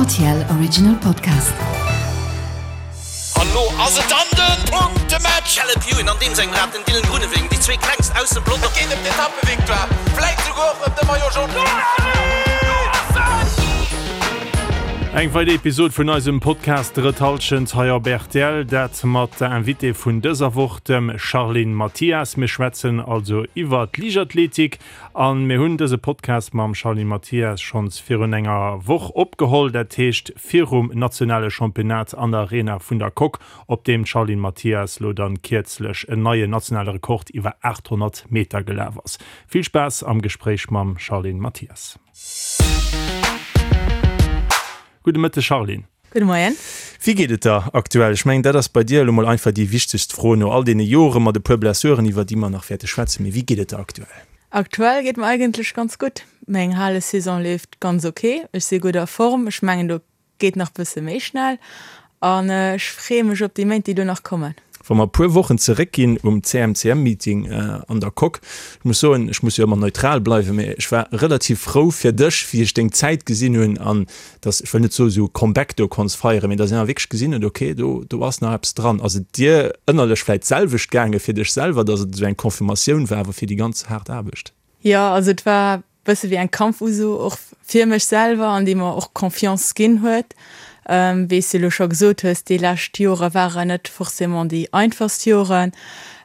Rtl Original Podcast. An lo ass et dann den Punktematch! Caleb Ewan an deem sengem Rad, den Dylan Groenewegen, déi zwee klengst aus dem Pelotong. Et geet ëm d'Etappevictoire, vläit souguer och ëm de Maillot Jaune. Eng weider Episod vun eisem Podcast Drëtt Hallschent hei op rtl, dat mat der Invitée vun dëser Woch, dem Charline Mathias. Mir schwätzen also iwwer d'Liichtathletik An mir hunn dëse Podcast mam Charline Mathias schonns virun enger Woch opgeholl, dat heescht virum nationale Championnat an der Arena vun der Coque, op deem d'Charline Mathias lo dann kierzlech en neien nationale Rekord iwwer 800 Meter gelaf ass. Vill Spaass am Gespréich mam Charline Mathias. Gudde Mëtteg Charline. Gudde Moien. Wéi geet et der aktuell? Ech mengen, dat ass bei dir elo mol einfach déi wichtegst Fro no all deene Jore mat e puer Blessuren, iwwer déi mer nach wäerte schwätzen. Mee wéi geet et der aktuell? Aktuell geet mer eigentlech ganz gutt. Meng Halesaison leeft ganz ok. Ech si gutt a Form. Ech mengen, do geet nach bësse méi schnell an ech freeë mech op déi Méint, déi do nach kommen. Wa mer e puer Wochen zeréckginn um CMCM-Meeting an der Coque, ech muss soen, ech muss jo ëmmer neutral bleiwen, mee ech war relativ frou fir dech, wéi ech deng Zäit gesinn hunn an dass, ech wëll net soen, esou e Comeback do konns feieren, mee dass een awer wierklech gesinn huet, okay, do, do ass nach eppes dran. Ass et dir ënnerlech vläicht d'selwecht gaange fir dech selwer, dass et esou eng Confirmatioun war awer fir déi ganz haart Aarbecht? Jo, also et war bësse wéi eng Kampfuso och fir mech selwer an déi mer och Confiance ginn huet. Wéi s de elo scho gesot hues, déi lescht Jore waren net forcément déi einfachst Joren.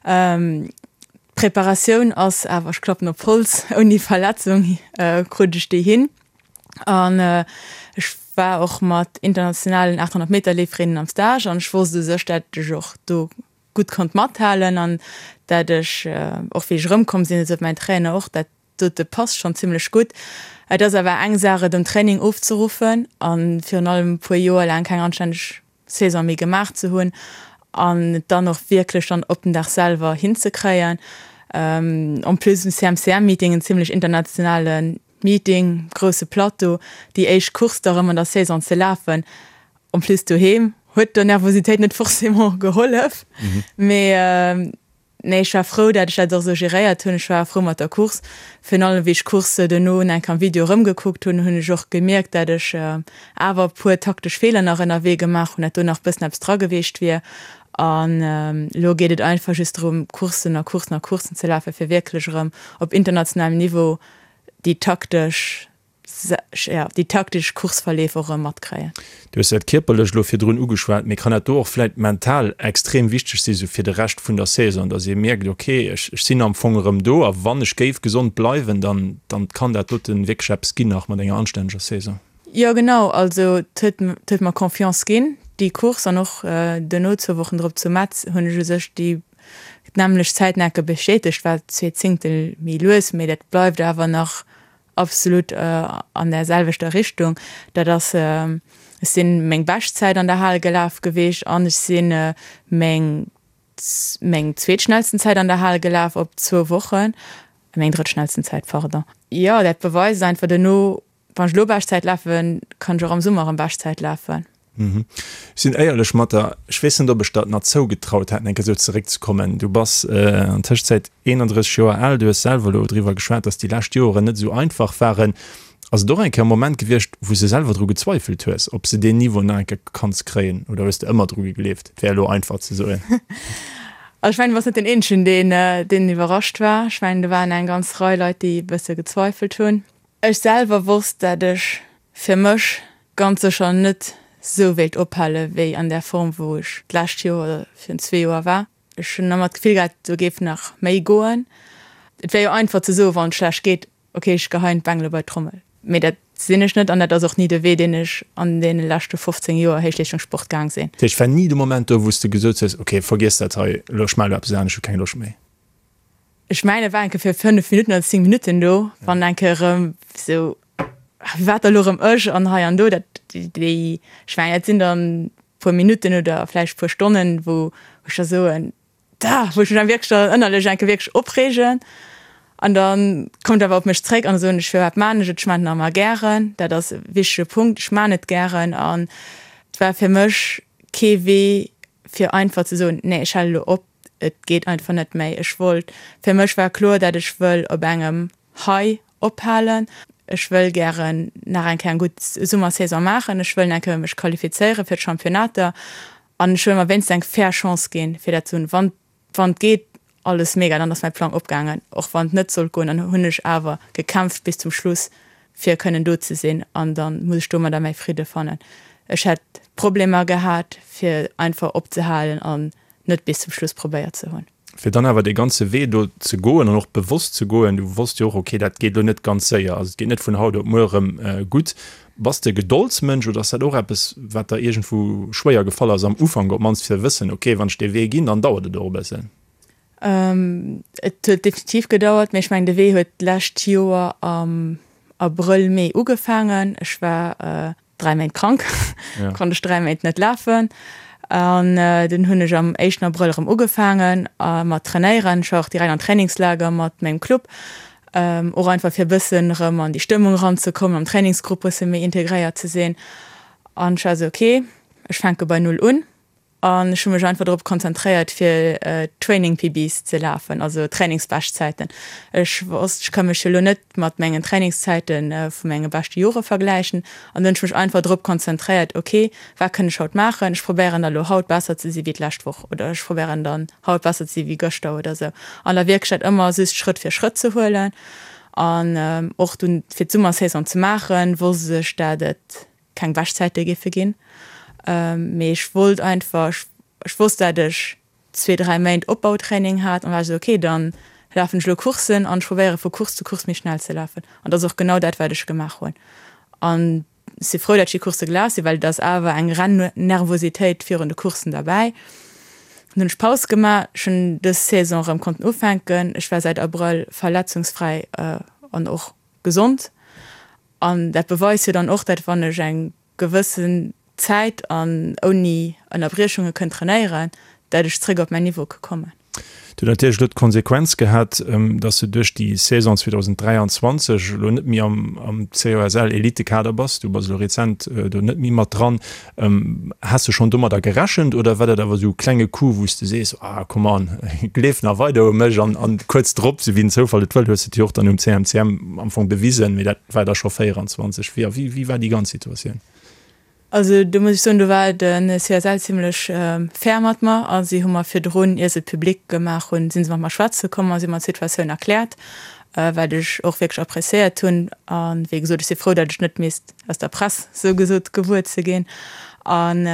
D'Preparatioun ass awer, ech klappen op Holz, ouni Verletzung krut ech déi hin. An ech war och mat internationalen 800 Meter Leeferinnen am Stage an ech wosst u sech, dat ech och do gutt konnt mathalen an dat ech och wéi ech erëmkomm sinn, esou mäin Trainer och, dat dote passt schonn zimmlech gutt. Et ass awer eng Saach et um Training ofzeruffen a virun allem e puer Joer laang keng anstänneg Saison méi gemaach ze hunn an et dann och wierklech dann op den Dag selwer hinzekréien. En plus um CMCM-Meeting, en zimmlech internationale Meeting, grousse Plateau, déi éischt Course da rëm an der Saison ze lafen, en plus doheem, huet der Nervositéit net forcément gehollef. Mee nee, ech war frou, dat ech dat och esou geréiert hunn. Ech war frou mat der Course. Virun allem wéi ech d'Course duerno eng Kéier am Video erëmgekuckt hunn, hunn ech och gemierkt, dat ech awer e puer taktesch Feeler nach ënnerwee gemaach hunn, dat do nach e bëssen eppes dra geweecht wier. An elo geet et einfach just drëm, Courssen a Courssen a Courssen ze lafen, fir wierklech erëm op internationalem Niveau déi taktesch, jo, déi taktesch Courseverleef och erëm matkréien. Du hues dat Kierperlecht elo virdrun ugeschwat, mee kann dat do och vläit mental extrem wichteg si sou fir de Rescht vun der Saison, datt ee mierkt, ok, ech ech sinn am Fong erëm do a wann ech géif gesond bleiwen, dann dann kann dat doten wierklech eppes ginn nach mat enger anstänneger Saison? Jo genau, also et huet et huet mer Confiance ginn, déi Course an och duerno zwou Wochen drop zu Metz hunn ech u sech déi D'nämmlecht Zäitnecke bestätegt, war zwee Zéngtel méi lues, mee dat bleift awer nach absolut an där selwechter Richtung. Dat ass, ech sinn meng Beschtzäit an der Hal gelaf geweecht an ech sinn meng meng zweetschnellsten Zäit an der Hal gelaf op zwou Wochen, meng drëttschnellsten Zäit, pardon. Jo, dat beweist einfach duerno Wann ech elo Beschtzäit lafen, kann ech och am Summer erëm Beschtzäit lafen. Ech sinn éierlech mat der, ech weess net, ob ech der et nach zougetraut hätt, eng Kéier esou zeréckzekommen. Du bass an Tëschezäit 31 Joer al, du hues selwer elo driwwer geschwat, datt déi lescht Joren net esou einfach waren. Ass et och eng Kéier e Moment gewiescht, wou s de selwer dru gezweifelt hues, ob s de deen Niveau nach eng Kéier kanns kréien, oder hues de ëmmer dru gegleeft? Et wär elo einfach ze soen. Also ech mengen, du bass net deen Eenzegen, deen, deen iwwerrascht war. Ech mengen, do waren eng ganz Rei Leit, déi e bësse gezweifelt hunn. Ech selwer wosst, dat ech fir mech ganz sécher net sou wéilt ophale wéi an där Form wou ech d'lescht Joer oder virun zwee Joer war. Ech hunn ëmmer d'Gefill gehat, do géif nach méi goen. Et wär jo einfach ze soen, wann et schlecht geet, ok ech geheien d'Bengele bei d'Trommel. Mee dat sinn ech net an dat ass och ni de Wee deen ech an deene leschte 15 Joer Héichleeschtungssport gaang sinn. Dat heescht, war ni de Moment do wou s de gesot hues, ok vergiess dat hei, elo ech maache elo eppes anescht, ech hu keng Loscht méi? Ech mengen et war eng Kéier fir 5 Minutten oder 10 Minutten do, wann eng Kéier erëm sou, wat da lo erëm ech an hei an do, dat déi, ech mengen dat sinn dann puer Minutten oder vläicht puer Stonnen, wou ech da soen, da wou ech mech dann wierklech dann ënnerlech eng Kéier wierklech opreegen an da kommt awer op mech zréck an da soen ech, firwat maan ech et, ech maan et nach ëmmer gären, dat ass e wichtege Punkt, ech maan et gären an et war fir mech kee Wee fir einfach ze soen, nee ech hale lo op. Et geet einfach net méi. Ech wollt, fir mech war kloer, dat ech wëll op engem High ophalen. Ech wëll gären nach eng Kéier eng gutt Summersaison maachen, ech wëll nach eng Kéier mech qualifizéiere fir d'Championnater an ech wëll mer wéinstens eng fair Chance ginn, fir dat ze hunn. Wann wann et geet, alles mega, dann ass mäi Plang opgaangen. Och wann et net sollt goen, dann hunn ech awer gekämpft bis zum Schluss, fir kënnen do ze sinn an da muss ech domadder mäi Fridde fannen. Ech hätt Problemer gehat, fir einfach opzehalen an net bis zum Schluss probéiert ze hunn. Fir dann awer dee ganze Wee do ze goen an och bewosst ze goen, du wosst jo och, okay, dat geet elo net ganz séier, also et geet net vun haut op muer erëm gutt. Bass de e Gedoldsmënsch oder ass dat och eppes, wat der iergendwou schwéier gefall ass am Ufank op d'mannst, fir ze wëssen, okay, wann ech dee Wee ginn, dann dauert et och e bëssen? Et huet definitiv gedauert, mee ech mengen, de Wee huet d'lescht Joer am Abrëll, Mee ugefaangen. Ech war 3 Méint krank, ja. konnt ech 3 Méint net lafen. An äh, den hunn ech am éischten Abrëll erëm ugefaangen äh, mat trainéieren. Ech war och direkt an Trainingslager mat mengem Club. Ähm, och einfach fir bëssen erëm an déi Stëmmung eranzekommen, am Trainingsgrupp bësse méi integréiert ze sinn. An ech war esou, okay, ech fänke bei Null un. An ech hu mech einfach drop konzentréiert fir Training PBs ze lafen, also Trainingsbeschtzäiten. Ech wosst, ech ka mech jo elo net mat mengen Trainingszäite vu menge beschte Jore vergläichen. An dunn hunn ech mech einfach drop konzentréiert, ok, wat kënn ech haut maachen? Ech probéieren da elo haut besser ze si wéi d'lescht Woch oder ech probéieren dann haut besser ze si wéi gëschter oder sou. An da wierklech dat ëmmer just Schrëtt fir Schrëtt ze huelen. An och dunn fir d'Summersaison ze maachen, wosst ech, dat et keng Beschtzäite géife ginn, mee ech wollt einfach, ech wosst dat ech zwee, dräi Méint Opbautraining hat an war ech esou, ok, dann lafen ech elo Courssen an ech probéiere vu Course zu Course méi schnell ze lafen an dat ass och genau dat wat ech gemaach hunn an ech si frou dat ech déi Coursse gelaf sinn, well et ass awer eng Rennervositéit virun de Courssen derbäi. Dann hunn ech Paus gemaach, ech hunn dës Saison erëm konnten ufänken, ech war säit Abrëll verletzungsfräi an och gesond An dat beweist jo dann och, dat wann ech eng gewëssen Zäit an ouni Ënnerbriechunge kënn trainéieren, dat ech zréck op mäin Niveau ke kommen. Dat huet natierlech elo d'Konsequenz gehat, dass de duerch déi Saison 2023 elo net méi am COSL-Elitekader bass. Du bass elo rezent do net méi mat dran. Has de schonn domadder gerechent oder war dat awer esou e klenge Coup, wou s de sees, ah come on, gleef nach weider u mech an an kuerz drop, sou wéi den Zoufall et wëll, hues de et jo och dann um CMCM am Fong bewisen, mee dat war da scho 24. Wéi wéi wéi war déi ganz Situatioun? Also do muss ech soen, do war de CSL zimlech fair mat mer a si hu mer virdrun, ier se et public gemaach hunn, si se mat mer schwätze komm a si hu mer d'Situatioun erkläert, wat ech och wierklech appréciéiert hunn. A wéi gesot, ech si frou, datt ech net misst aus der Press sou gesot gewuer ze ginn. An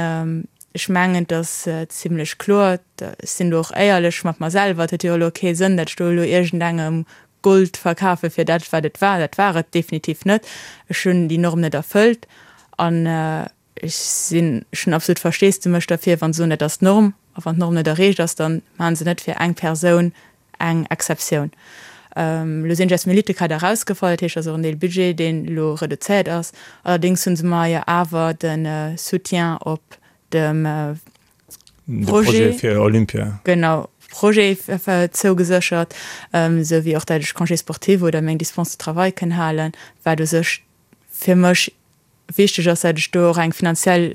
ech mengen, et ass zimlech kloer, ech sinn do och éierlech mat mer selwer, et huet jo elo kee Sënn, datt ech do elo iergendengem Gold verkafe fir dat, wat et war. Dat war et definitiv net. Ech hunn déi Norm net erfëllt an ech sinn, ech hunn absolut Versteesdemech derfir, wa se soen, dat ass d'Norm. A wann d'Norm net erreecht ass, da maache se net fir eng Persoun eng Exceptioun. Elo sinn ech aus dem Elitekader erausgefall, dat heescht, et ass och en Deel Budget, deen elo reduzéiert ass. Allerdéngs hu se mer jo awer de Soutien op dem Projet fir Olympia, genau, Projet zougeséchert, esou wéi och dat ech Congé sportif oder meng Dispense de travail kënn halen, wat u sech fir mech Wichteg ass, dat ech do och eng finanziell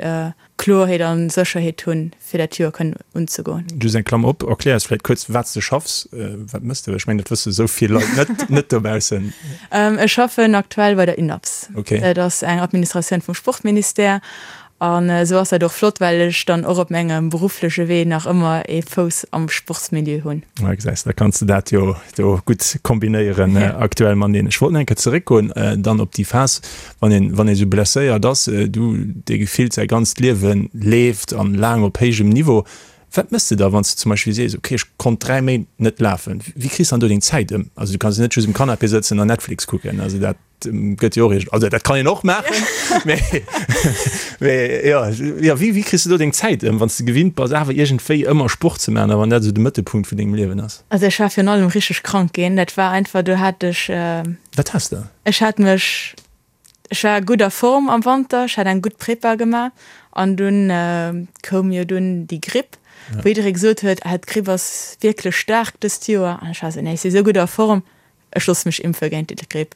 Kloerheet a Sécherheet hunn, fir dat Joer kënnen unzegoen. Just eng Klammer op, erklär eis vläicht kuerz, wat s de schaffs, wat mëss de? Ech mengen, dat wësse sou vill Leit net, net dobaussen. Ech schaffen aktuell bei der UNAPS. Okay. Dat ass eng Administratioun vum Sportministère. An esou ass dat och flott, well ech dann och op mengem beruffleche Wee nach ëmmer ee Fouss am Sportsmilieu hunn. Ah, gesäis, da kanns de dat jo do gutt kombinéieren aktuell mateneen. Ech wollt nach eng Kéier zeréckgoen dann op déi Phas, wann een, wann ee sou blesséiert ass, du, dee gefillt säi ganzt Liewe leeft an laang op héijem Niveau. Wat méchs de da, wann s de zum Beispill sees, okay, ech konnt 3 Méint net lafen? Wéi kriss de dann do deng Zäit ëm? Also du kanns jo net just um Canapé sëtzen an Netflix kucken, also dat gëtt jo och iergend, also dat kann een och maachen, mee, mee jo, jo, wéi, wéi kriss de do deng Zäit ëm, wann s de gewinnt bass awer iergendwéi ëmmer Sport ze maachen a wann dat esou de Mëttelpunkt vun dengem Liewen ass? Also ech war virun allem richteg krank ginn, dat war einfach, do hat ech. Wat has de? Ech hat mech, ech war gutt a Form am Wanter, ech hat eng gutt Prepa gemaach an dunn koum jo dunn déi Gripp, wou jidderee gesot huet, ah d'Gripp ass wierklech staark dëst Joer an ech war esou, nee ech si sou gutt a Form, ech loosse mech impfe géint déi Gripp.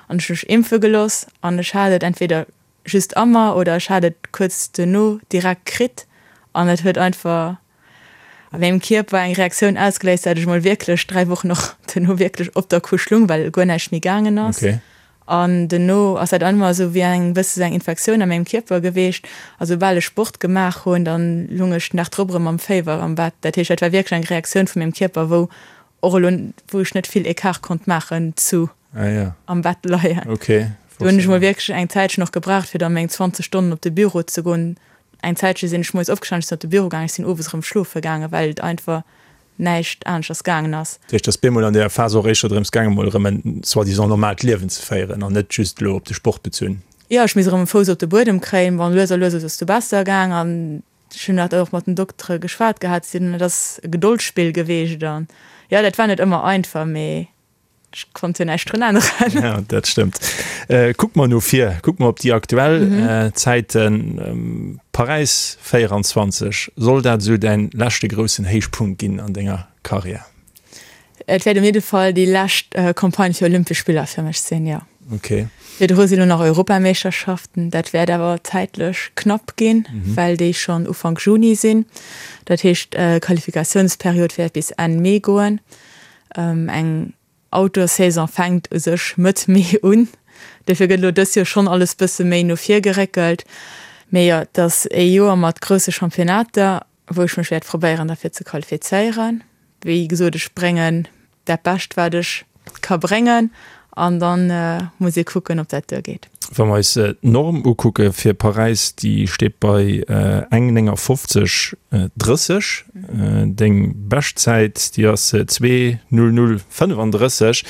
An ech hu mech impfe gelooss an ech hat et entweder just a mer oder ech hat et kuerz duerno direkt kritt an et huet einfach a mengem Kierper eng Reaktioun ausgeléist, dat ech mol wierklech 3 Wochen och duerno wierklech op der Couche lung, well guer näischt méi gaangen ass. Okay. An duerno ass dat ëmmer esou wéi eng bësse sou eng Infektioun a mengem Kierper geweecht. A soubal ech Sport gemaach hunn, dann lung ech den Dag drop erëm mam Féiwer am Bett. Dat heescht, dat war wierklech eng Reaktioun vu mengem Kierper, wou och elo, wou ech net vill Ecart konnt maachen zu am Bett leien. Do hunn ech mol wierklech eng Zäitchen och gebraucht, fir da meng 20 Stonnen op de Büro ze goen. Eng Zäitche sinn ech moies opgestanen, ech sinn op de Büro gaangen, ech sinn owes erëm schlofe gaangen, well et einfach näischt aneschters gaangen ass. Dat heescht, et ass bemol an där Phas och éischter drëms gaangen, mol erëm en soi-disant normaalt Liewen ze féieren an net just elo op de Sport bezunn. Jo, ech misst erëm e Fouss op de Buedem kréien. Bon, lues a lues ass et du besser gaang an ech hunn dat och mat den Doktere geschwat gehat. Si hunn, et ass e Gedoldsspill geweecht an jo, dat war net ëmmer einfach, mee Ech konnt jo näischt drun änneren. Ja, dat stëmmt. Kucke mer no vir, kucke mer op déi aktuell Zäiten. Paräis 24, soll dat esou däin leschte groussen Héichpunkt ginn an denger Karriär? Et wäert op jidde Fall déi lescht Campagne fir Olympesch Spiller fir mech sinn, jo. Okay. Virdru sinn elo nach Europameeschterschaften. Dat wäert awer zäitlech knapp ginn, well déi schonn Ufank Juni sinn. Dat heescht, d'Qualifikatiounsperiod wäert bis Enn Mee goen. Eng Outdoor-Saison fänkt u sech Mëtt Mee un, dofir gëtt elo dëst Joer schonn alles bësse méi no vir geréckelt. Mee jo, et ass ee Joer mat grousse Championnater, wou ech mech wäert probéieren derfir ze qualifizéieren. Wéi gesot, ech bréngen dat Bescht wat ech ka bréngen an dann muss ee kucken, ob dat duergeet. Wa mer eis d'Norm ukucke fir Paräis, déi steet bei eng 59 30. Deng Beschtzäit, déi ass 2 00 35.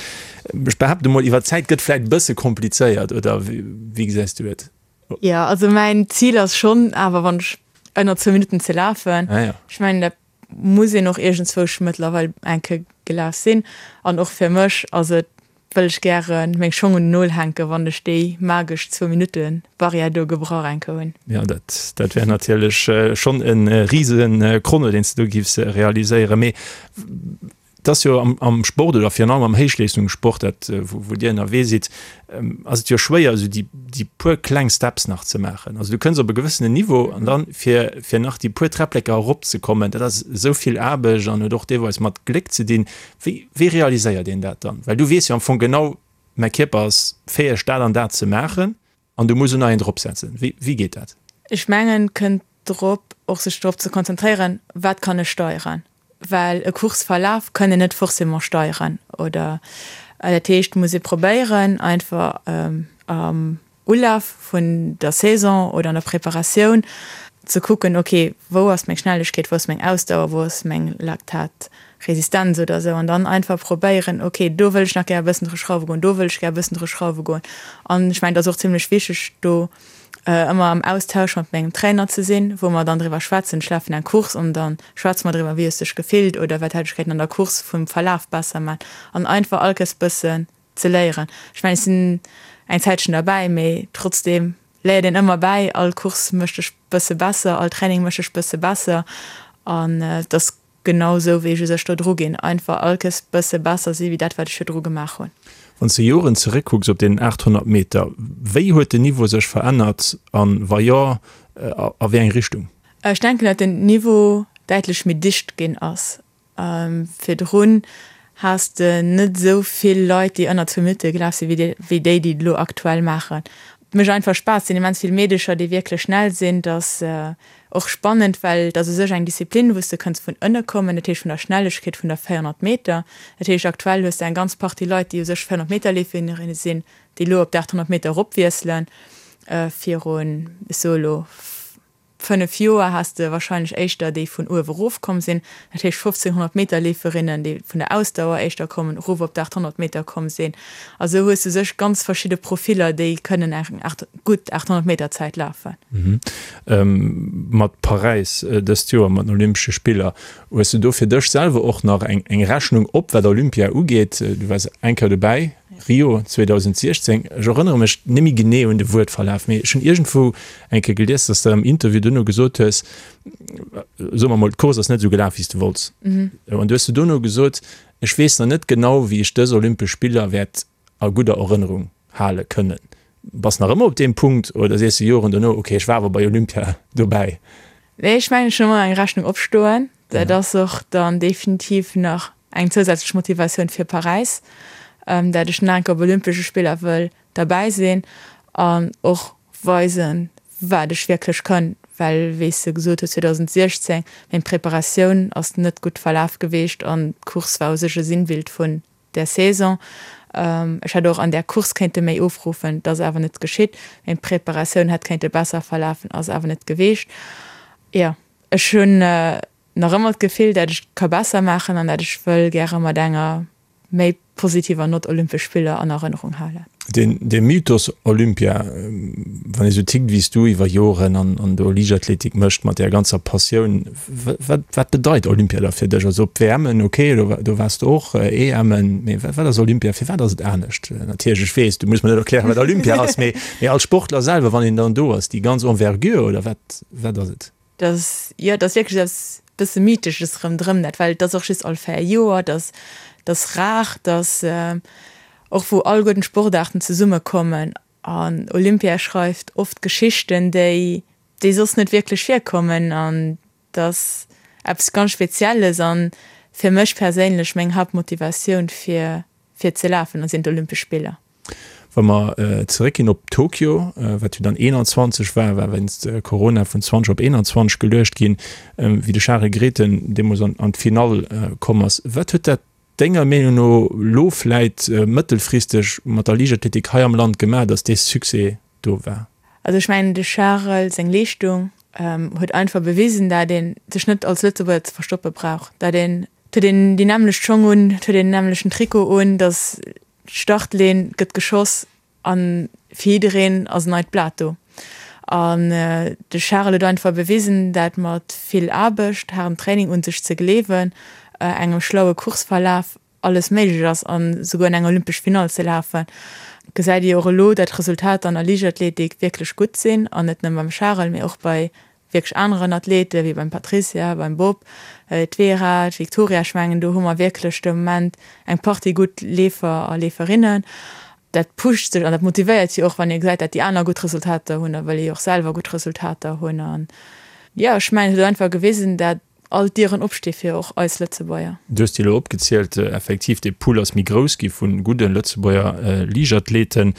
Ech behaapte mol, iwwer d'Zäit gëtt vläit e bësse komplizéiert, oder wéi gesäis du et? Jo, also mäin Zil ass schonn awer, wann ech ënner zwou Minutten ze lafen. Ech mengen, dat muss een och iergendzwousch mëttlerweil eng Kéier gelaf sinn. An och fir mech ass et wëll ech gären meng Schong un den Nol hänken, wann ech déi magesch zwou Minutte Barrière do gebrach enke hunn. Jo, dat dat wär natierlech schonn e rise Chrono, deen s de do giffs realiséieren. Mee et ass jo am am Sport oder virun allem am Héichleeschtungssport, dat wou wou Dir ënnerwee sidd, ass et jo schwéier esou déi déi puer kleng Steps nach ze maachen. Also du kënns op e gewëssenen Niveau an dann fir fir nach déi puer Träppleker eropzekommen, dat ass esou vill Aarbecht an huet och deelweis mat Gléck ze dinn. Wéi, wéi realiséiert een dat dann? Well du weess jo am Fong genau, mäi Kierper ass fäeg dat an dat ze maachen an du muss en neien drop setzen. Wéi, wéi geet dat? Ech mengen, et kënnt drop, och sech drop ze konzentréieren, wat kann ech steieren? Well e Courseverlaf kann een net forcément steieren oder dat heescht, muss ee probéieren einfach am Ulaf vun der Saison oder an der Preparatioun ze kucken, ok, wou ass meng Schnellegkeet, wou ass meng Ausdauer, wou ass meng Laktatresistenz oder esou an dann einfach probéieren, ok, do wëll ech nach gär e bëssen dru schrauwe goen, do wëll ech gär e bëssen dru schrauwe goen. An ech mengen, et ass och zimlech wichteg, do ëmmer am Austausch mat mengem Trainer ze sinn, wou mer dann driwwer schwätzen. Ech lafen eng Course an da schwätze mer driwwer, wéi hues de dech gefillt oder wat hätt ech kéinten an der Course vum Verlaf besser man an einfach all Kéiers bëssen ze léieren. Ech mengen, ech sinn eng Zäitchen derbäi, mee trotzdeem léiert een ëmmer bäi. All Course mécht dech bësse besser, all Training mécht dech bësse besser an et ass genau esou, wéi ech u sech do dru ginn, einfach all Kéiers bësse besser si wéi dat, wat ech virdru gemaach hunn. Wann s de Joren zeréckkucks op deenen 800 Meter, wéi huet den Niveau sech verännert an, wa jo, a wéi eng Richtung? Ech denken, datt den Niveau däitlech méi dicht ginn ass. Virdrun has de net esou vill Leit, déi ënner zwou Minutte gelaf sinn, wéi déi, déi et elo aktuell maachen. Et mécht einfach Spaass. Et sinn immens vill Meedecher, déi wierklech schnell sinn. Et ass och spannend, well et ass u sech eng Disziplin, wou s de kënns vun ënne kommen, dat heescht vun der Schnellegkeet vun der 400 Meter. Dat heescht, aktuell hues de eng ganz Partie Leit, déi u sech 400 Meter Leeferinnen sinn, déi elo op d'800 Meter eropwiesselen. Virun, ech soe elo, 5 Joer has de wahrscheinlech éischter déi vun uewe rof komm sinn, dat heescht 1500 Meter Leeferinnen, déi vun der Ausdauer éischter kommen, erof op d'800 Meter komm sinn. A sou hues du sech ganz verschidde Profiller, déi kënnen eng gutt 800 Meter Zäit lafen. Mat Paräis dëst Joer, mat den Olympesche Spiller, hues du do fir dech selwer och nach eng Rechnung op, wat Olympia ugeet? Du waars eng Kéier dobäi. Rio 2016, ech erënnere mech net méi genee un de Wuertverlaf, mee ech hunn iergendwou eng Kéier gelies, dass de am Interview duerno gesot hues, soe mer mol, d'Course ass net esou gelaf, wéi s de wollts. An du hues du duerno gesot, ech weess nach net genau, wéi ech dës Olympesch Spiller wäert a gudder Erënnerung hale kënnen. Bass nach ëmmer op deem Punkt oder sees de Joren duerno, okay, ech war awer bei Olympia dobäi? Nee, ech mengen, ech hunn ëmmer eng Rechnung opstoen. Dat ass och dann definitiv nach eng zousätzlech Motivatioun fir Paräis, dat ech nach eng Kéier op Olympesche Spiller wëll. derbäi sinn an och weisen, wat ech wierklech kann, well wéi s de gesot hues, 2016, meng Preparatioun ass net gutt verlaf geweecht an d'Course war u sech e Sinnbild vun där Saison. Ech hätt och an där Course kéinte méi ofruffen, dat ass awer net geschitt. Meng Preparatioun hätt kéinte besser verlafen, ass awer net geweecht. Jo, ech hunn nach ëmmer d'Gefill, dat ech ka besser maachen an dat ech wëll gäre mat enger méi positiver Nott Olympesch Spiller an Erënnerung halen. Dee Mythos Olympia, wann ee sou tickt wéi s du iwwer Joren an do Liichtathletik mécht mat där ganzer Passioun, wat wat bedeit Olympia da fir dech? Also op d'WMen, ok, do waars de och, EMen, mee wat ass Olympia, firwat ass et anescht? Natierlech, ech weess, du muss mer net erklären, wat Olympia ass, mee als Sportler selwer, wann een dann do ass, déi ganz Envergure oder wat wat ass et? Dat ass, jo, dat ass wierklech eppes bësse Mythesches rëmdrëm dat, well et ass och just all 4 Joer, dat ass, dat ass rar, dat ass och wou alleguerten d'Sportaarten zesummekommen an Olympia schreift oft Geschichten, déi, déi soss net wierklech virkommen an dat ass eppes ganz Spezielles an fir mech perséinlech meng Haaptmotivatioun fir, fir ze lafen, sinn d'Olympesch Spiller. Wa mer zeréckginn op Tokio, wat jo dann 21 war, war wéinst Corona vun 20 op 21 geluecht ginn, wéi de Charel Grethen deemools an d'Finall komm ass. Wat huet dat denger Meenung no elo vläit mëttelfristeg mat der Liichtathletik hei am Land gemaach, datt dee Succès do war? Also ech mengen de Charel seng Leeschtung huet einfach bewisen, dat ee sech net als Lëtzebuerger ze verstoppe brauch, dat een, et huet een déi nämmlecht Schong un, et huet een den nämmlechten Trikot un, datt D'Startlinn gëtt geschoss a fir jiddereen ass en neit Blat do. An de Charel huet einfach bewisen, dat mat vill Aarbecht, haardem Training, un sech ze gleewen, engem schlaue Courseverlaf alles méiglech ass an esouguer an eng olympesch Finall ze lafen. Gesäit ee jo och elo, dat d'Resultater an der Liichtathletik wierklech gutt sinn an net nëmme beim Charel, mee och bei wierklech aneren Athleten, wéi beim Patricia, beim Bob, d'Vera, d'Victoria, ech mengen do hu mer wierklech de Moment eng Partie gutt Leefer a Leeferinnen. Dat pusht sech an dat motivéiert jo och, wann ee gesäit, dat déi aner gutt Resultater hunn, da wëll ee jo och selwer gutt Resultater hunn. An jo, ech mengen et huet einfach gewisen, dat all d'Dieren opsti fir och eis Lëtzebuerger. Du hues déi elo opgezielt. Effektiv, dee Pool ass méi grouss gi vu gudde Lëtzebuerger Liichtathleten.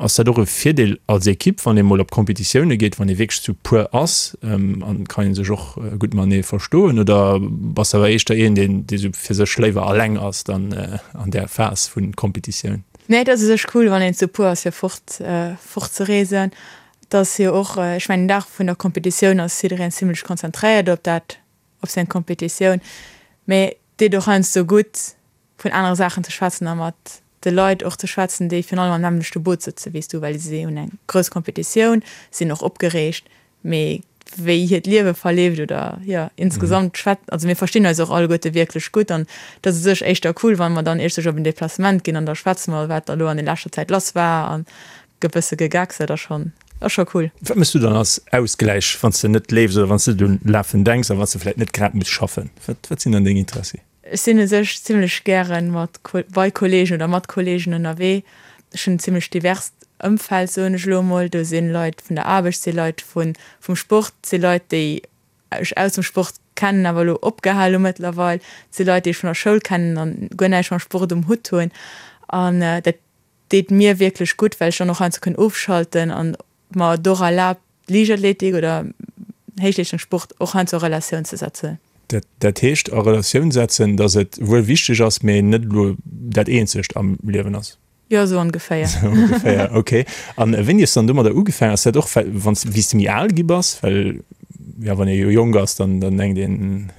Ass dat och e Virdeel als Ekipp, wann ee mol op Competitioune geet, wann ee wierklech zu puer ass? An kann ee sech och gutt matenee verstoen? Oder bass de awer éischter een, deen dee sou fir sech léiwer alleng ass dann an där Phas vu Competitioun? Nee, et ass u sech cool, wann een zu puer ass, fir fort fort ze reesen. Et ass jo och, ech mengen den Dag vun der Competitioun ass jiddereen zimlech konzentréiert op dat, op seng Competitioun, mee et deet och heiansdo gutt vun anere Saachen ze schwätzen a mat de Leit och ze schwätzen, déi virun allem am nämmlechte Boot sëtze wéi s du, well si hunn eng grouss Competitioun, sinn och opgereegt, mee wéi hiert Liewe verleeft oder jo insgesamt schwät, also mir verstinn eis och alleguerte wierklech gutt an et ass u sech éischter cool, wa mer dann iech sech op en Deplacement ginn an da schwätze mer, wat da lo an der leschter Zäit lass war an gëtt bësse gegeckst, dat ass schonn, ass scho cool. Wat méchs du dann als Ausgläich, wann s de net leefs oder wann s de net un Lafen denks a wann s de vläit net grad muss schaffen? Wat, wat sinn dann deng Interessi? Ech sinn u sech zimlech gäre mat, bei Kolleegen oder mat Kolleegen ënnerwee. Ech hunn en zimlech diverst Ëmfeld, soen ech elo emol. Do si Leit vun der Aarbecht, si Leit vu vum Sport, si Leit, déi ech aus dem Sport kennen, awer elo opgehal hu mëttlerweil, si Leit, déi ech vun der Schoul kennen an guer näischt mam Sport um Hutt hunn. An dat deet mir wierklech gutt, well ech dann och heiansdo kënn ofschalten an mer et och erlaabt, Liichtathletik oder Héichleeschtungssport och heiansdo a Relatioun ze setzen. Dat heescht a Relatioun setzen, datt et wuel wichteg ass, mee net elo dat eenzegt am Liewen ass? Jo, esou ongeféier. Esou ongeféier, ok. A wéini hues de dann domadder ugefaangen? Ass dat och, well wann s, wéi s de méi al gi bass? Well jo, wann ee jo jonk ass, dann dann denkt een,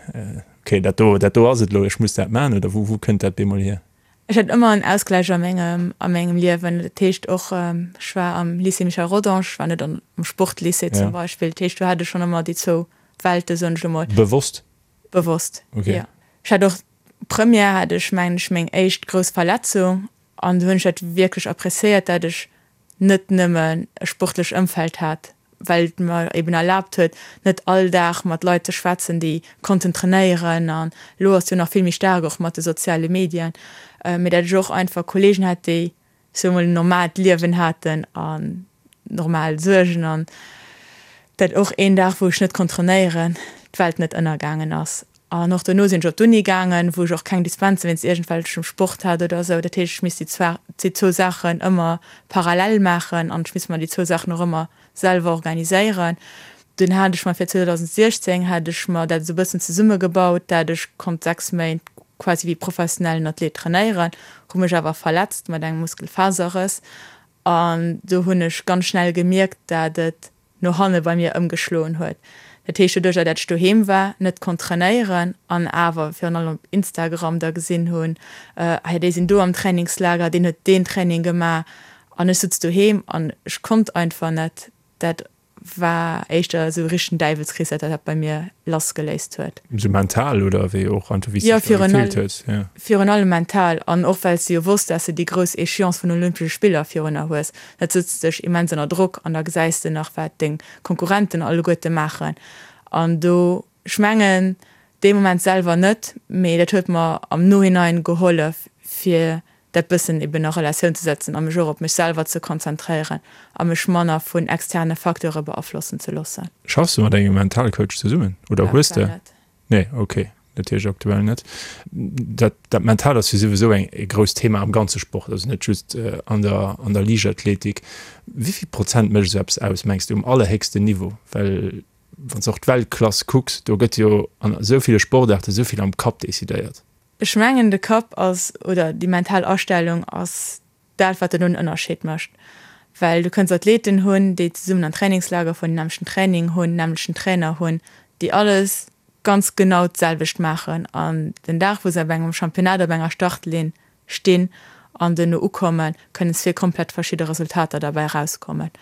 ok, dat do, dat do ass et elo, ech muss dat maachen. Oder wou wou kënnt dat bemol hier? Ech hat ëmmer en Ausgläich a mengem a mengem Liewen. Dat heescht och, ech war am Lycée Michel Rodange, ech war net am Sportlycée zum Beispill. Dat heescht, do hat ech schonn ëmmer déi zwou Welte, soen ech elo mol. Bewosst? Bewosst, jo. Ech hat och, Première hat ech, mengen ech, meng éischt grouss Verletzung an do hunn ech dat wierklech appréciéiert, dat ech net nëmmen e sportlech Ëmfeld hat, well et mer eben erlaabt huet, net all Dag mat Leit ze schwätzen, déi konnten trainéieren. An elo ass jo nach vill méi staark och mat de soziale Medien, mee dat ech och einfach Kolleegen hat, déi, ech soe mol, en normaalt Liewen haten an normal Suergen an dat och een Dag, wou ech net konnt trainéieren, d'Welt net ënnergaangen ass. An och dono sinn ech op d'Uni gaangen, wou ech och keng Dispense wéinst iergendwelchem Sport hat oder esou. Dat heescht, ech misst déi zwar, déi zwou Saachen ëmmer parallel maachen an ech misst mer déi zwou Saachen och ëmmer selwer organiséieren. Dunn hat ech mer fir 2016 hat ech mer dat esou e bëssen zesummegebaut, dat ech konnt 6 Méint quasi wéi professionellen Athlet trainéieren, hu mech awer verletzt mat engem Muskelfaserrëss an do hunn ech ganz schnell gemierkt, dat et no hanne bei mir ëmgeschloen huet. Dat heescht, doduercher dat ech doheem war, net konnt trainéieren an awer virun allem op Instagram da gesinn hunn, ah jo déi sinn do am Trainingslager, deen huet deen Training gemaach an ech sutz doheem an ech konnt einfach net. Dat war éischter esou e richtegen Däiwelskrees, dat dat bei mir lassgeléist huet. Esou mental oder wéi och einfach wéi s de dech da gefillt hues? Jo, virun allem mental an och well s de jo wosst, dass de déi grouss Échéance vun den Olympesche Spiller virunner hues. Dat sëtzt dech immens ënner Drock an da gesäis de nach wat deng Konkurrenten alleguerte maachen an do, ech mengen dee Moment selwer net, mee dat huet mer am Nohinein gehollef fir dat bëssen eben a Relatioun ze setzen a mech och op mech selwer ze konzentréieren a mech manner vun externe Facteure beaflossen ze loossen. Schaffs de mat engem Mentalcoach zesummen oder hues de? Nee, ok, dat heescht aktuell net. Dat, dat Mental ass jo souwisou eng, e grousst Thema am ganze Sport, also net just an der, an der Liichtathletik. Wéi vill Prozent mécht esou eppes aus, mengs de, um allerhéchsten Niveau? Well wann s de och d'Weltklass kucks, do gëtt jo an esou ville Sportaarte esou vill am Kapp decidéiert. Ech mengen de Kapp ass, oder déi mental Astellung ass dat wat den Ënnerscheed mécht. Well du kënns Athleten hunn, déi zesummen an Trainingslager fueren, den nämmlechten Training hunn, nämmlechten Trainer hunn, déi alles ganz genau d'selwecht maachen an den Dag wou se op engem Championnat op enger Startlinn stinn an duerno ukommen, kënnen zwee komplett verschidde Resultater derbäi erauskommen.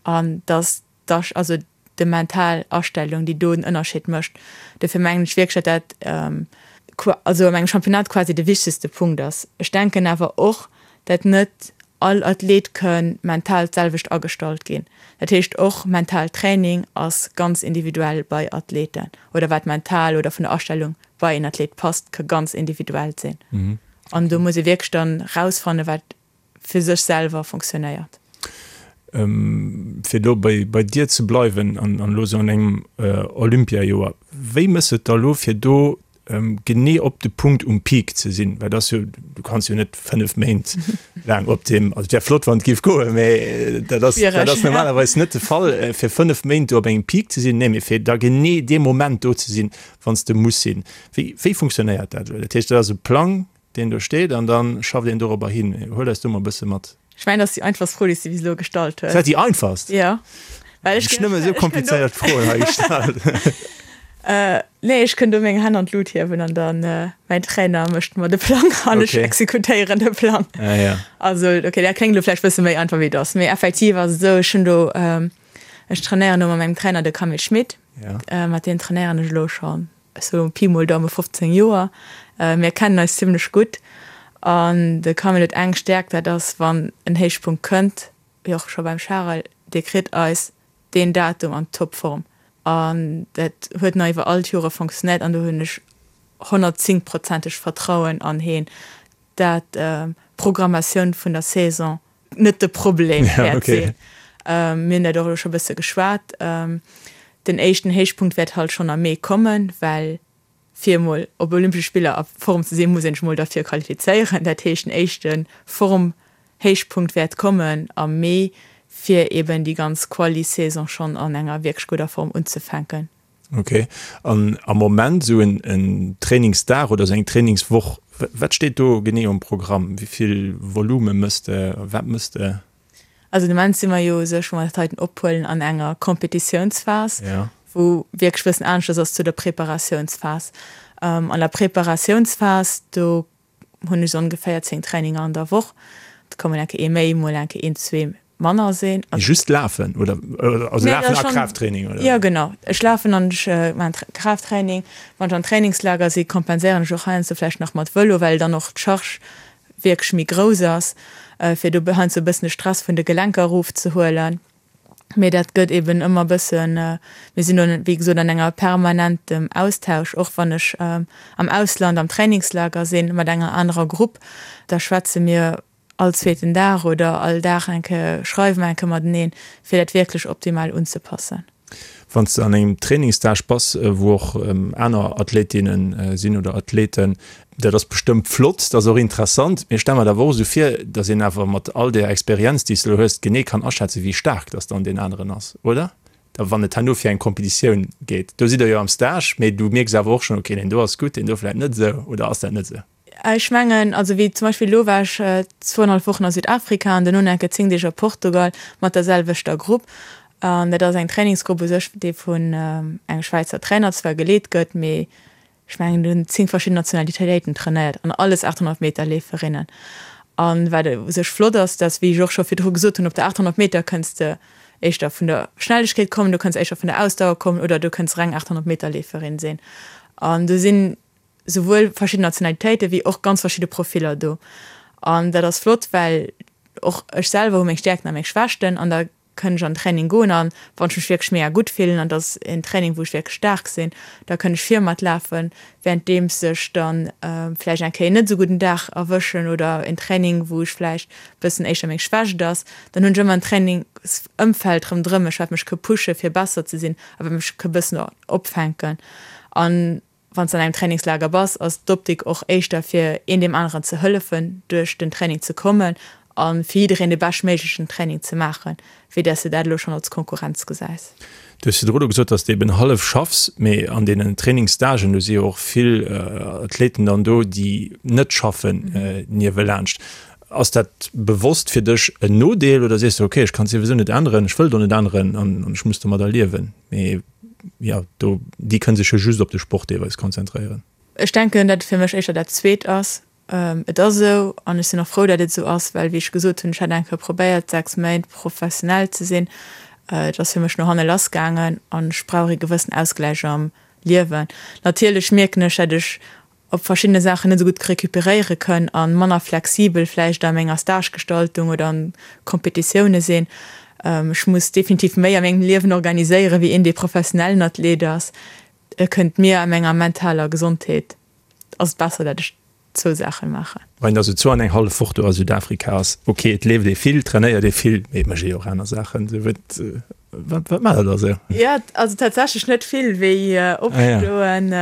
An dass d'Asch, also de mental Astellung, déi do den Ënnerscheed mécht. Dofir mengen ech wierklech, datt dat also an engem Championnat quasi de wichtegste Punkt ass. Ech denken awer och, datt net all Athlet kënn mental d'selwecht agestallt ginn. Dat heescht och mental Training ass ganz individuell bei Athleten oder wat mental oder vun der Astellung bei een Athlet passt, ka ganz individuell sinn. An do muss ee wierklech dann rausfannen, wat fir sech selwer fonctionnéiert. Fir elo bei dir ze bleiwen an elo esou an engem Olympiajoer, wéi mëss et da elo fir do genee op de Punkt um Peak ze sinn? Well dat ass jo, du kanns jo net 5 Méint laang op deem, also et wär flott wann et géif goen, mä dat ass, dat ass normalerweis net de Fall, fir 5 Méint do op engem Peak ze sinn. Nee, mee fir da genee dee Moment do ze sinn, wann s de muss sinn. Wéi, wéi funktionéiert dat elo? Dat heescht, dat ass e Plang, deen do steet an dann schafft een dorobber hin. Huel eis do mol e bësse mat. Ech mengen, dat ass déi einfachst Fro, déi s de bis elo gestallt hues. Ass dat déi einfachst? Jo. Well ech. Ech nëmme esou komplizéiert Froen hei gestallt. Nee, ech kënn do meng Hänn an d'Lut hiewen an dann mäin Trainer mécht mer de Plang an ech exekutéieren de Plang. Ah ja. Also okay, dat kléngt elo vläicht bësse méi einfach wéi et ass, mee effektiv ass et esou, ech hunn do, ech trainéieren do mat mengem Trainer, de Camille Schmit, mat deem trainéieren ech elo schonn Sou Pi mol Daume 15 Joer. Mir kennen eis zimmlech gutt an de Camille huet eng Stäerkt, dat ass wann en Héichpunkt kënnt, wéi och scho beim Charel, dee kritt eis deen Datum an Topform an dat huet nach iwwer all d'Jore fonctionnéiert an do hunn ech 110 prozenteg Vertrauen an heen, dat d'Programmatioun vun der Saison net de Problem wäert sinn. Mir hunn dat och elo scho bësse geschwat. Den éischten Héichpunkt wäert halt schonn am Mee kommen, well fir emol op Olympesche Spiller a Form ze sinn, muss een sech emol derfir qualifizéieren. Dat heescht, den éischte Formhéichpunkt wäert kommen am Mee, fir eben déi ganz Quali-Saison schonn an enger wierklech gudder Form unzefänken. Ok, an am Moment esou en Trainingsdag oder esou eng Trainingswoch, wat steet do genee um Programm? Wéi vill Volume mëss de, wat mëss de? Also de Moment si mer jo u sech, wou mer dat heiten ophuelen, an enger Competitiounsphas, wou wierklech e bëssen aneschters ass zu der Preparatiounsphas. An der Preparatiounsphas, do hunn ech ongeféier 10 Traininger an der Woch. Et ka mol eng Kéier ee méi, mol eng Kéier een, zwee manner sinn. Mee just lafen oder also lafen a Kraafttraining oder? Jo genau, ech lafen an ech maachen Kraafttraining. Wann ech an Trainingslager si kompenséieren ech och heiansdo vläicht nach mat Vëlo, well dann och d'Charge wierklech méi grouss ass, fir do heiansdo e bëssen de Stress vun de Gelenker erofzehuelen. Mee dat gëtt eben ëmmer bëssen, mir sinn do wéi gesot an enger permanentem Austausch, och wann ech am Ausland am Trainingslager sinn mat enger anerer Grupp, da schwätze mir all zweeten Dag oder all Dag eng Kéier, schreiwe mer eng Kéier mateneen, fir dat wierklech optimal unzepassen. Wann s de an engem Trainingsstage bass, wou och aner Athletinne sinn oder Athleten, dat ass bestëmmt flott, dat ass och interessant, mee ech stelle mer et awer och esou vir, datt een awer mat all där Experienz, déi s de elo hues, genee kann aschätzen, wéi staark datt dann deen aneren ass, oder? Da wann et herno fir eng Competitioun geet. Do sidd Der jo am Stage, mee du mierks awer och schonn, okay, deen do ass gutt, deen do vläicht net esou, oder ass dat net esou? Ech mengen, also wéi zum Beispill elo war ech zwouenhallef Wochen a Südafrika an duerno nach eng Kéier 10 Deeg a Portugal mat der selwechter Grupp. An dat ass eng Trainingsgrupp u sech, déi vun engem Schwäizer Trainer zwar geleet gëtt, mee ech mengen do hunn 10 verschidden Nationalitéiten trainéiert an alles 800 Meter Leeferinnen. An wat u sech flott ass, dass, wéi ech och scho virdru gesot hunn, op der 800 Meter kënns de éischter vun der Schnellegkeet kommen, du kënns éischter vun der Ausdauer kommen oder du kënns reng 800 Meter Leeferin sinn. An do sinn souwuel verschidden Nationalitéiten wéi och ganz verschidde Profiller do. An dat ass flott, well och ech selwer hu meng Stäerkten a meng Schwächten an da kënn ech an den Training goen an wann ech mech wierklech mega gutt fillen an et ass en Training wou ech wierklech staark sinn, da kënn ech vir mat lafen, währenddeems ech dann vläicht eng Kéier net esou gudden Dag erwëschen oder en Training wou ech vläicht bëssen éischter meng Schwächt ass, dann hunn ech ëmmer en Trainingsëmfeld ronderëm mech wat mech ka pushe fir besser ze sinn a wat mech ka bëssen opfänken. An Wann s de an engem Trainingslager bass, ass d'Optik och éischter fir een deem aneren ze hëllefen duerch den Training ze kommen a fir jiddereen de beschtméiglechen Training ze maachen, wéi dass de dat elo schonn als Konkurrenz gesäis. Du hues virdru elo gesot, dass de eben hallef schaffs, mee an deenen Trainingsstagen, do si jo och vill Athleten dann do, déi net schaffen niewelaanscht. Ass dat bewosst fir dech en Nodeel oder sees de, okay, ech kann et souwisou net änneren, ech wëll et och net änneren an ech muss domadder liewen? Mee jo, do, déi kënne sech jo just op de Sport deelweis konzentréieren. Ech denken, datt et fir mech éischter dat Zweet ass. Et ass esou an ech sinn och frou, datt et esou ass, well wéi ech gesot hunn, ech hat eng Kéier probéiert, 6 Méint professionell ze sinn. Et ass fir mech no hanne lass gaangen an ech brauch ee gewëssen Ausgläich am Liewen. Natierlech mierken ech, datt ech op verschiddene Saachen net esou gutt recuperéiere kënn a manner flexibel vläicht a menger Stagegestaltung oder an Competitioune sinn. Ech muss definitiv méi a mengem Liewen organiséieren, wéi een, dee professionellen Athlet ass. Et kënnt mir a menger mentaler Gesondheet ass et besser, dat ech zwou Saachen maachen. Wann een da sou zwou an eng hallef Woch do a Südafrika ass, ok, et leeft ee vill, trainéiert ee vill, mee et mécht ee jo och aner Saachen. Sou wat, wat, wat maacht der da sou? Jo, also tatsächlech net vill, wéi opstoen,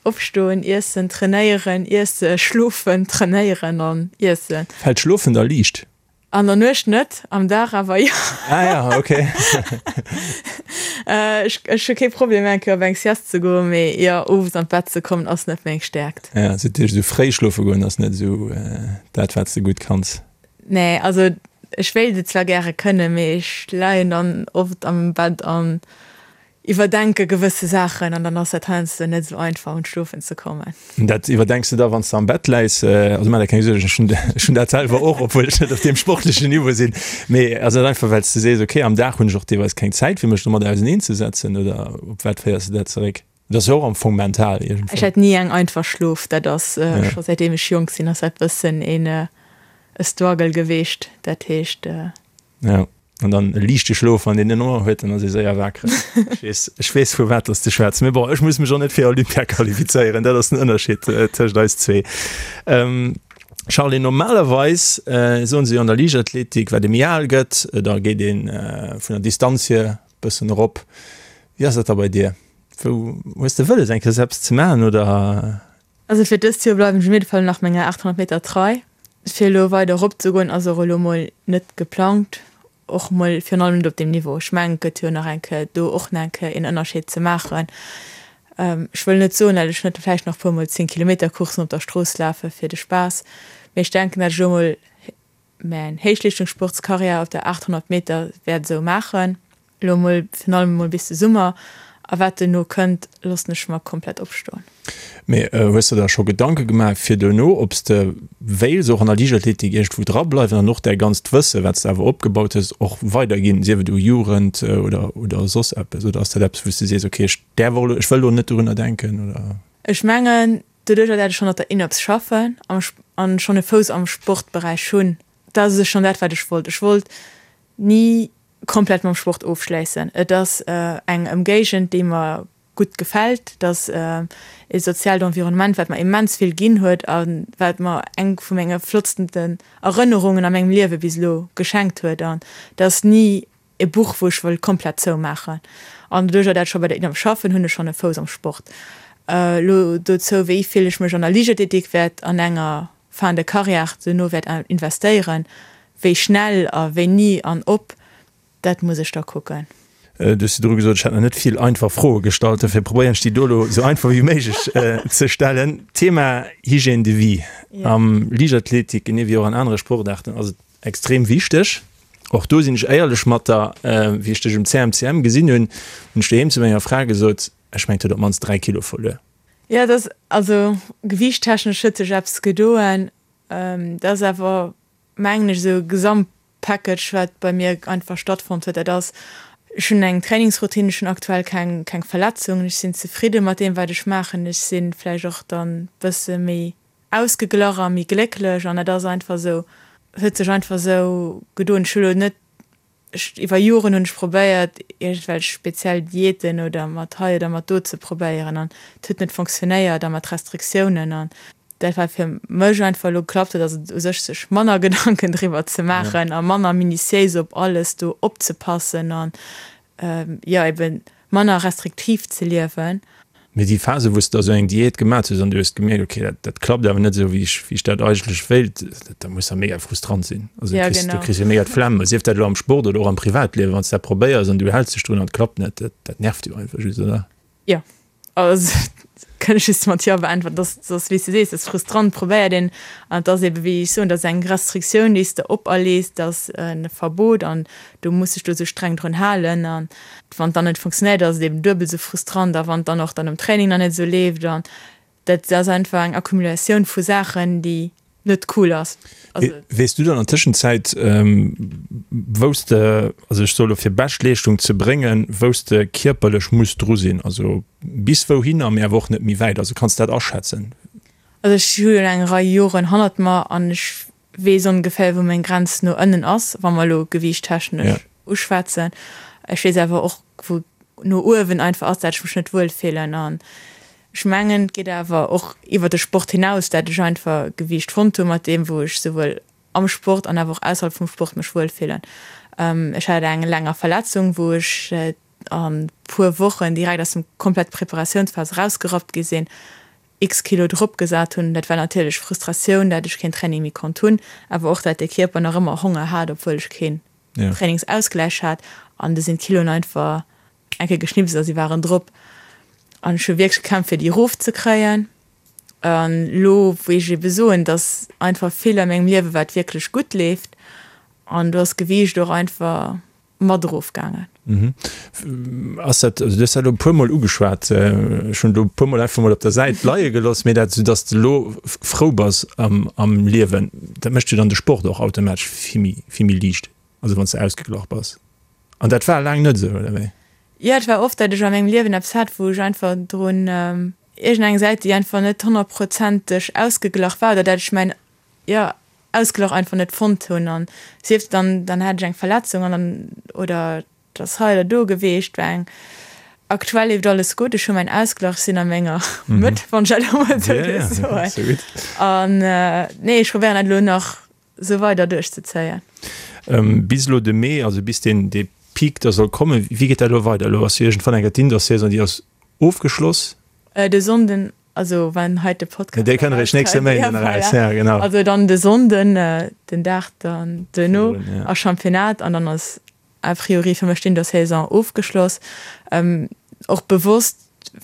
Opstoen, iessen, trainéieren, iessen, schlofen, trainéieren an iessen. Fält Schlofen da liicht? An der Nuecht net, am Dag awer jo. Ah ja, ok. Ech ech hu kee Problem eng Kéier op eng Sieste ze goen, mee jo, owes an d'Bett ze kommen ass net meng Stäerkt. Ja, sou dat heescht esou fréi schlofe goen ass net esou dat wat s de gutt kanns? Nee, also ech wéilt et zwar gäre kënnen, mee ech leien dann oft am Bett an Iwwerdenke gewësse Saachen an dann ass dat heiansdo net esou einfach un d'Schlofen ze kommen. Dat iwwerdenks de da wann s de am Bett läis? Also maach der keng Suergen, ech hunn ech hunn dat selwer och, obwuel ech net op deem sportlechen Niveau sinn. Mee ass dat einfach well s de sees, okay am Dag hunn ech och deelweis keng Zäit fir mech domat auseneen ze setzen oder op wat féiers de dat zeréck? Dat ass jo och am Fong mental iergendwou. Ech hat ni eng einfach Schlof, dat ass scho säitdeem ech jonk sinn ass dat bëssen een e Struggle geweecht, dat heescht. Ja, an dann e liichte Schlof, wann een en Honger huet, dann ass ee séier wakereg. Ech weess, ech weess vu wat dass de schwätz. Mee bon, ech muss mech och net fir Olympia qualifizéieren, dat ass den Ënnerscheed tëscht eis zwee. Charly, normalerweis soen se jo an der Liichtathletik, wat ee méi al gëtt, da geet ee vun der Distanz hier bëssen erop. Wéi ass dat da bei dir? Wou hues de wëlles eng Kéier eppes ze maachen oder? Also fir dëst Joer bleiwen ech op jidde Fall nach menger 800 Meter trei. Fir elo weider erop ze goen ass och elo mol net geplangt, och mol virun allem net op deem Niveau. Ech mengen et gëtt jo nach eng Kéier do och nach eng Kéier een Ënnerscheed ze maachen. Ech wëll net soen, dat ech net vläicht nach puer mol 10 Kilometer Courssen op der Strooss lafe fir de Spaass, mee ech denken, dat ech elo mol Mäin Héichleeschtungssportskarriär op der 800 Meter wäert esou maachen, elo mol virun allem emol bis de Summer, a wat duerno kënnt, loossen ech mer komplett opstoen. Mee hues de der scho Gedanke gemaach fir duerno, ob s de wéils och an der Liichtathletik iergendwou dra bleiwen an och däi ganzt Wësse wat s de awer opgebaut hues och weiderginn, sief et u Jugend oder oder soss eppes? Oder ass dat eppes wou s de sees, okay ech däerf och elo, ech wëll elo net dorunner denken oder? Ech mengen, Doduercher dat ech schonn op der INOPS schaffen an schonn e Fouss am Sportberäich hunn, dat ass u sech schonn dat wat ech wollt. Ech wollt ni komplett mam Sport ofschléissen. Et ass eng Ëmgéigend déi mer gutt gefält, et ass e soziaalt Environnement wat mer immens vill ginn huet a wat mer eng vu menge flottsten Erënnerungen a mengem Liewe bis elo geschenkt huet an et ass ni. E Buch, wou ech wëll komplett zoumaachen. An doduercher dat ech scho bei der INAP schaffen, hunn ech schonn e Fouss am Sport. Elo dozou, wéi vill ech mech an der Liichtathletik wäert an enger Fin de carrière duerno wäert investéieren, wéi schnell a wéini an ob, dat muss ech da kucken. Du hues virdru gesot, ech hätt nach net vill einfach Froe gestallt, dofir probéieren ech déi do elo esou einfach wéi méiglech ze stellen. Thema Hygiène de vie am Liichtathletik, genee wéi och an anere Sportaarten, ass et extrem wichteg. Och do sinn ech éierlech mat der, wéi ech dech um CMCM gesinn hunn, hunn ech doheem zu menger Fra gesot, ech mengen, et huet op d'mannst 3 Kilo verluer. Jo, et ass, also gewiichttechnesch huet sech eppes gedoen. Dat ass awer, mengen ech, esou e Gesamtpackage, wat bei mir einfach stattfonnt huet. Dat ass, ech hunn eng Trainingsroutine, ech hunn aktuell keng, keng Verletzungen, ech sinn zefridde mat deem, wat ech maachen. Ech si vläicht och dann e bësse méi ausgeglach a méi glécklech an dat ass einfach esou, huet sech einfach esou gedoen. Ech hu lo net, ech iwwer Joren hunn ech probéiert iergendwelch speziell Diäten oder mat hei oder mat do ze probéieren an et huet net fonctionnéiert a mat Restriktiounen an dat wat fir mech einfach elo geklappt huet ass et u sech sech manner Gedanken driwwer ze maachen a manner minutiéis op alles do opzepassen an jo eben manner restriktiv ze liewen. Mee déi Phase wou s de da sou eng Diät gemat hues an du hues gemierkt, ok dat dat klappt awer net esou wéi ech wéi ech dat eigentlech wéilt, dat muss da mega frustrant sinn. Also du kriss du kriss jo mega d'Flemm, sief dat elo am Sport oder och am Privatliewen, wann s de dat probéiers an du häls dech drun an et klappt net, dat dat nervt jo einfach just, oder? Jo, also kënn ech just mat jo beäntweren. Dat ass, dat ass wéi s de sees, dat ass frustrant, probéiert een an et ass ebe wéi ech soen, dat ass eng Restriktioun déi s de operlees, dat ass e Verbot an du muss dech do esou streng drun halen an wann et dann net funktionéiert ass et eben duebel esou frustrant a wann et dann och dann um Training nach net esou leeft an dat ass einfach eng Accumulatioun vu Saachen déi net cool ass. Also Weess du dann an Tëschenzäit wou s de, also ech soe lo fir Beschtleeschtung ze bréngen, wou s de kierperlech muss dru sinn, also bis wouhinner, mee awer och net méi wäit, also kanns de dat aschätzen? Also ech hu jo eng Rei Joren hannert mer an ech weess ongeféier wou meng Grenz no ënnen ass, wa mer elo gewiichttechnesch uschwätzen. Ech weess awer och wou no uewen einfach ass, dat ech mech net wuel fillen. An ech mengen et geet awer och iwwer de Sport hinaus, dat ech einfach Gewiicht fonnt hu mat deem wou ech souwuel am Sport an awer och ausserhalb vum Sport mech wuel fillen. Ech hat eng länger Verletzung wou ech a puer Wochen direkt aus dem komplett Preparatiounsphas erausgerappt gi sinn. X Kilo drop gesat hunn. Dat war natierlech Frustratioun, dat ech keen Training méi konnt hunn, awer och dat de Kierper nach ëmmer Honger hat, obwuel ech keen Trainingsausgläich hat. An du sinn d'Kiloen einfach eng Kéier geschnipst a si waren drop. An ech hu wierklech gekämpft, fir déi erof ze kréien. An elo wou ech ebe soen, dass einfach vill a mengem Liewe wat wierklech gutt leeft an do ass d'Gewiicht och einfach mat erof gaangen. Ass dat, also du hues dat elo e puermol ugeschwat, ech hunn elo e puermol einfach mol op der Säit leie gelooss, mee dat, soudass de elo frou bass am am Liewen, dat mécht jo dann de Sport och automatesch vill méi vill méi liicht, also wann s de ausgeglach bass. An dat war laang net esou, oder wéi? Jo, et war oft, dat ech a mengem Liewen eppes hat, wou ech einfach drun, iergendeng Säit, déi einfach net honnertprozenteg ausgeglach war, oder dat ech mäin, jo, Ausglach einfach net fonnt hunn an sief dann dann hat ech eng Verletzung an dann oder et ass hei oder do geweecht war eng aktuell leeft alles gutt ech hu mäin Ausglach ech sinn a menger Mëtt wann ech dat elo mol esou dierf soen an nee ech probéieren dat elo nach esou weider duerchzezéien. Bis elo de Mee, also bis deen dee Peak da soll kommen, wéi geet dat elo weider? Elo ass jo iergendwann eng Kéier d'Indoor-Saison, déi ass ofgeschloss. De Sonnden Also wann hei de Podcast Dee kënnt eréischt nächste Méinden eraus, ja genau. Also dann de Sonnden, den Dag dann duerno ass Championnat an dann ass a priori fir mech d'Indoor-Saison ofgeschloss. Och bewosst,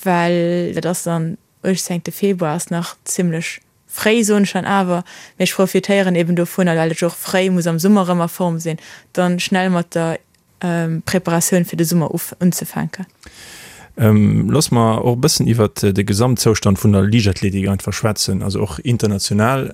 well dat ass dann 18 Februar, ass nach zimmlech fréi soen ech dann awer, mee ech profitéieren eben dovunner, well ech och fréi muss am Summer erëm a Form sinn, dann schnell mat der Preparatioun fir de Summer unzefänken. Looss mer och e bëssen iwwert de Gesamtzoustand vun der Liichtathletik einfach schwätzen, also och international.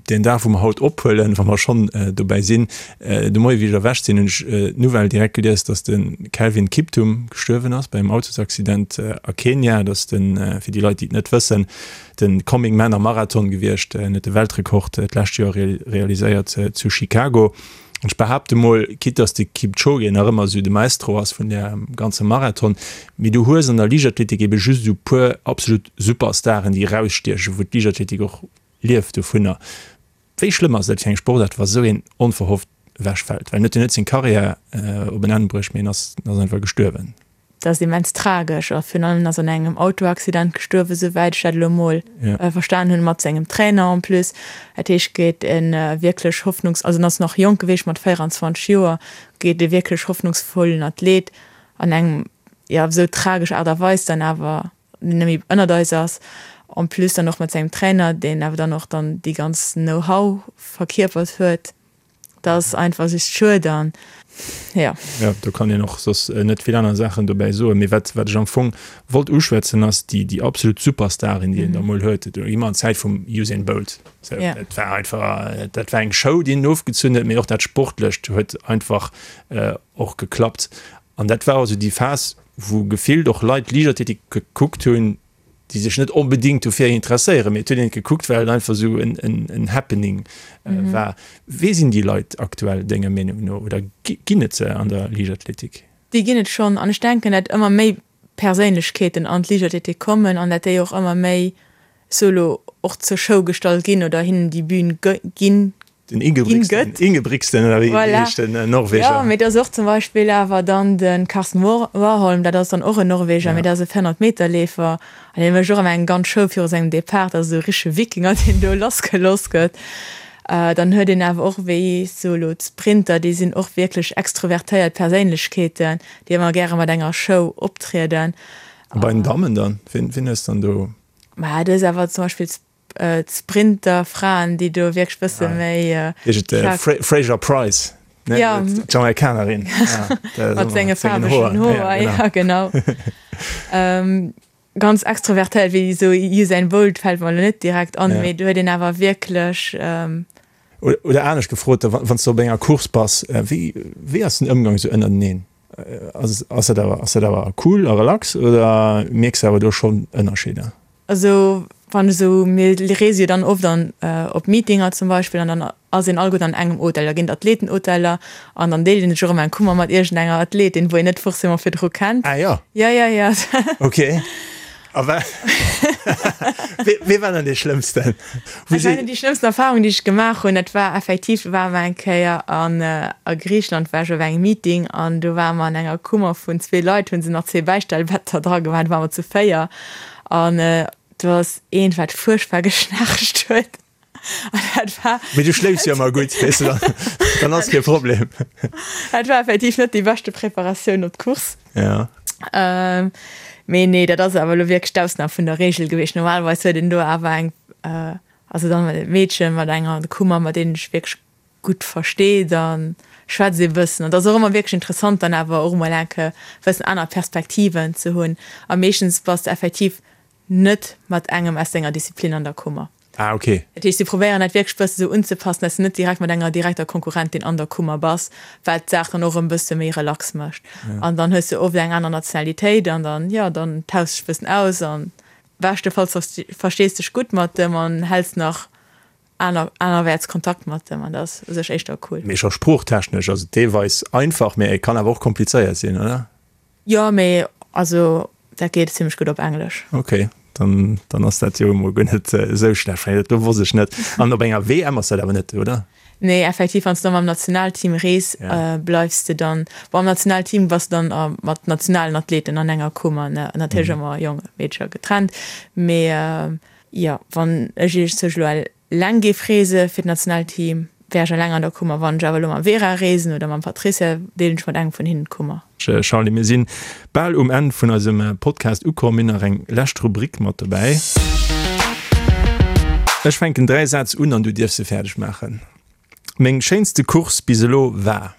Deen Dag, wou mer haut ophuelen, wa mer schonn dobäi sinn, de Moie wéi ech erwächt sinn, hunn ech d'Nouvelle direkt gelies, datt de Kelvin Kiptum gestuerwen ass bei engem Autosaccident a Kenia. Dat ass den, fir déi Leit, déi et net wëssen, de Coming Man am Marathon gewiescht. En huet de Weltrekord d'lescht Joer realiséiert zu Chicago. An ech behaapte mol, quitte dass de Kipchoge nach ëmmer esou de Maestro ass vun där ganze Marathon, mee du hues an der Liichtathletik ebe just esou puer absolut Superstaren, déi erausstiechen, wou d'Liichtathletik och lieft dovunner. Wéi schlëmm ass dat fir eng Sportaart, wa sou een onverhofft. ewechfält. Well en huet jo net seng Karriär op en Enn bruecht, mee en ass einfach gestuerwen. Dat ass immens tragesch a virun allem en ass an engem Autoaccident gestuerwen, souwäit ech dat elo emol verstan hunn, mat sengem Trainer en plus. Dat heescht, geet e wierklech hoffnungs-, also en ass nach jonk gewiescht, mat 24 Joer, geet e wierklech hoffnungsvollen Athlet an engem, jo, op esou tragesch Aart a Weis dann awer net méi ënnert eis ass, en plus dann och mat sengem Trainer, deen awer dann och dann déi ganz Know-how verkierpert huet. Dat ass einfach just schued an jo. Jo, do kann een och soss net vill aner Saachen dobäi soen. Mee wat, wat ech am Fong wollt uschwätzen, ass déi, déi absolut Superstarin, déi een da mol huet. Do gi mer an d'Zäit vum Usain Bolt. Sou, dat war einfach, dat war eng Show, déi en ofgezunn huet, mee och dat Sportlecht huet einfach och geklappt. An dat war also déi Phas, wou gefillt och Leit Liichtathletik gekuckt hunn, déi sech net onbedéngt dofir interesséieren, mee et huet een et gekuckt, well et einfach esou en Happening war. Wee sinn déi Leit aktuell denger Meenung no oder ginn et se an der Liichtathletik? Déi ginn et schonn an ech denken, dat ëmmer méi Perséinlechkeeten an d'Liichtathletik kommen an dat déi och ëmmer méi solo och zur Show gestallt ginn oder hinnen déi Bühn ginn Den Ingebrigtsen, Ingebrigtsen oder wéi heescht den Norweger? Jo, mee et ass och zum Beispill awer dann de Karsten Warholm, dat ass dann och en Norweger, mee dat ass e 400 Meter Leefer an dee mécht och ëmmer eng ganz Show viru sengem Depart, dat ass esou e richtege Wikinger, deen do lassgelooss gëtt. Dann huet een awer och wéi sou elo d'Sprinter, déi sinn och wierklech extrovertéiert Perséinlechkeeten, déi ëmmer gäre mat enger Show optrieden. A bei den Dammen dann, wien hues dann do? Ma du hues awer zum Beispill d'Sprinter-Fraen, déi do wierklech bësse méi. Heescht et Fraser Price, ne? Ja. D'Jamaikanerin. Mat senge faarwegen Hoer, ja genau. Ganz extrovertéiert, wéi esou Usain Bolt fält mer elo net direkt an, mee do huet een awer wierklech. Oder anescht gefrot, wann s de op enger Course bass, wéi wéi ass den Ëmgang esou ënnerteneen? Ass ass dat awer ass dat awer cool a relax oder mierks de awer do schonn Ënnerscheeder? Also wann esou, mir reese jo dann oft an op Meetinger zum Beispill an dann ass een alleguerten an engem Hotel, da ginn et Athletenhoteller an dann deelt een sech och ëmmer eng Kummer mat iergendenger Athletin, wou een net forcément virdru kennt. Ah jo? Jo, jo, jo. Ok. A wa wee war dann dee Schlëmmsten? Ech mengen déi schlëmmsten Erfahrung, déi ech gemaach hunn, dat war effektiv, do ware mer eng Kéier an a Griicheland war ech op engem Meeting an do ware mer an enger Kummer vun zwee Leit, hu se nach zwee Bäistellbetter dra gemaach, do ware mer zu 4 An do ass eent, wat fuerchtbar geschnaarcht huet. An dat war. Mee du schléifs jo ëmmer gutt, weess de, dann ass kee Problem. Dat war effektiv net déi beschte Preparatioun op d'Course. Ja. Mee nee, dat ass awer elo wierklech d'Ausnam vun der Reegel gewiescht. Normalerweis huet een do awer eng, also dann e Meedchen mat enger Kummer, mat deenen ech wierklech gutt versteet a schwätzt ee bëssen. An et ass och ëmmer wierklech interessant dann awer och emol enke bëssen aner Perspektiven ze hunn. A meeschtens bass de effektiv net mat engem aus denger Disziplin an der Kummer. Ah, ok. Dat heescht, si probéieren dat wierklech bësse sou unzepassen, dass de net direkt mat enger direkter Konkurrentin an der Kummer bass, wat d'Saach dann och erëm bësse méi relax mécht. An dann hues de oft eng aner Nationalitéit an dann, jo, dann tauschs dech bëssen aus an beschtefalls verstees dech gutt mat dem an häls nach aner anerwäerts Kontakt mat dem an dat ass u sech éischter cool. Mee scho sproochtechnesch ass et deelweis einfach, mee et kann awer och komplizéiert sinn, oder? Jo, mee also dat geet zimmlech gutt op Englesch. Ok, dann dann ass dat jo emol guer net esou schlecht, well dat do wosst ech net. An op enger WM ass dat awer net, oder? Nee, effektiv, wann s de da mam Nationalteam rees, bleifs de dann, bon am Nationalteam bass de dann mat nationalen Athleten an enger Kummer, ne, natierlech ëmmer Jongen, Meedcher getrennt, mee Jo, wann ech iech sech elo eleng géif reese fir d'Nationalteam, wär ech eleng an der Kummer. Wann ech awer elo mam Vera reesen oder mam Patricia, deelen ech mat engem vun hinnen d'Kummer. Charly, mir sinn bal um Enn vun eisem Podcast ukomm. Mir hunn nach eng lescht Rubrik mat dobäi. Ech fänken 3 Sätz un an du dierfs se fäerdeg maachen. Meng schéinste Course bis elo war?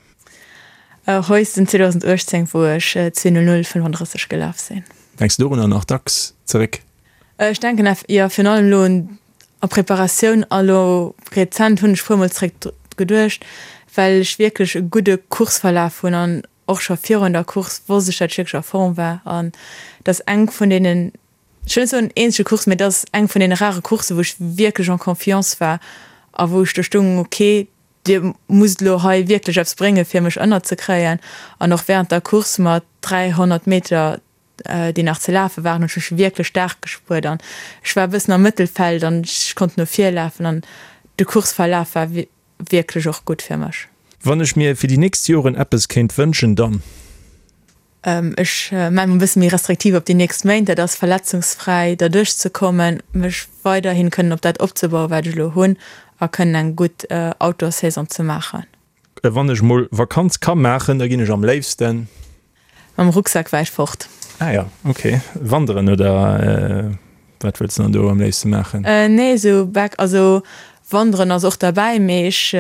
Heusden 2018, wou ech 2:00:35 gelaf sinn. Denks du dorunner nach dacks zeréck? Ech denken eff, jo, virun allem elo un a Preparatioun a lo rezent hunn ech puermol zréck dru geduecht, well ech wierklech e gudde Courseverlaf hunn an och scho virun der Course wosst ech, dat ech wierklech a Form war an et ass eng vun deenen, ech wëll net soen eenzege Course, mee et ass eng vun deene rare Courssen, wou ech wierklech en confiance war a wou ech do stoung, ok, dir musst elo hei wierklech eppes bréngen, fir mech ënnerzekréien an och während der Course mat 300 Meter déi nach ze lafe waren, hunn ech mech wierklech staark gespuert an ech war e bëssen am Mëttelfeld an ech konnt no vir lafen an de Courseverlaf war wierklech och gutt fir mech. Wann ech mir fir déi nächst Joren eppes kéint wënschen, dann? Ech maache mer e bësse méi restriktiv op déi nächst Méint, dat ass verletzungsfräi derduerch ze kommen, mech weiderhin kënnen op dat opzebauen, wat ech elo hunn a kënnen eng gutt Outdoor-Saison ze maachen. Wann ech mol Vakanz ka maachen, da ginn ech am léifsten. Mam Rucksak wäit fort. Ah jo, ok. Wanderen oder wat wëlls de dann do am léifste maachen? Nee, esou back, also wanderen ass och derbäi, mee ech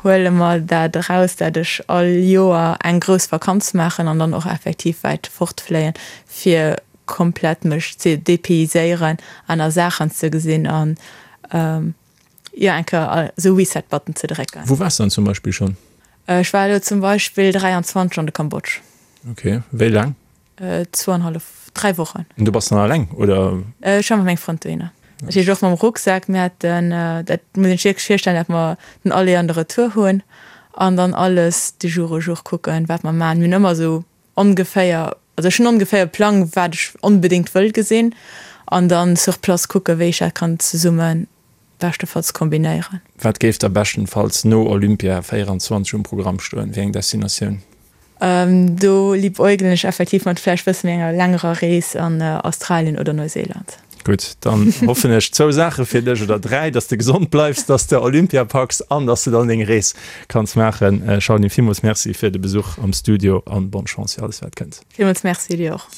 huele mer dat eraus, dat ech all Joer eng grouss Vakanz maachen an dann och effektiv wäit fortfléien, fir komplett mech ze dépayséieren, aner Saachen ze gesinn an jo eng Kéier esou Reset Button ze drécken. Wou waars de dann zum Beispill schonn? Ech war elo zum Beispill 23 an de Kambodsch. Ok, wéi laang? Zwouanhallef, 3 Wochen. An du bass dann alleng, oder? Ech war mat mengem Frënd dohinner. Dat heescht och mam Rucksak. Mir haten, dat muss een sech wierklech virstellen, dat mer den Aller an de Retour hunn an dann alles de jour au jour kucken, wat mer maachen. Mir hunn ëmmer esou ongeféier, also ech hunn ongeféier e Plang, wat ech onbedéngt wëll gesinn an dann sur place kucken, wéi ech dat kann zesumme beschtefalls kombinéieren. Wat géif da beschtenfalls no Olympia 24 um Programm stoen? Wéi eng Destinatioun? Do liebäugelen ech effektiv mat vläicht bësse méi enger längerer Rees an Australien oder Neuseeland. Gutt, dann hoffen ech zwou Saache fir dech, oder dräi, dass de gesond bleifs, dass de Olympia packs an dass de dann deng Rees kanns maachen. Charline, villmools Merci fir de Besuch am Studio an bonne Chance fir alles wat kënnt. Villmools Merci dir och.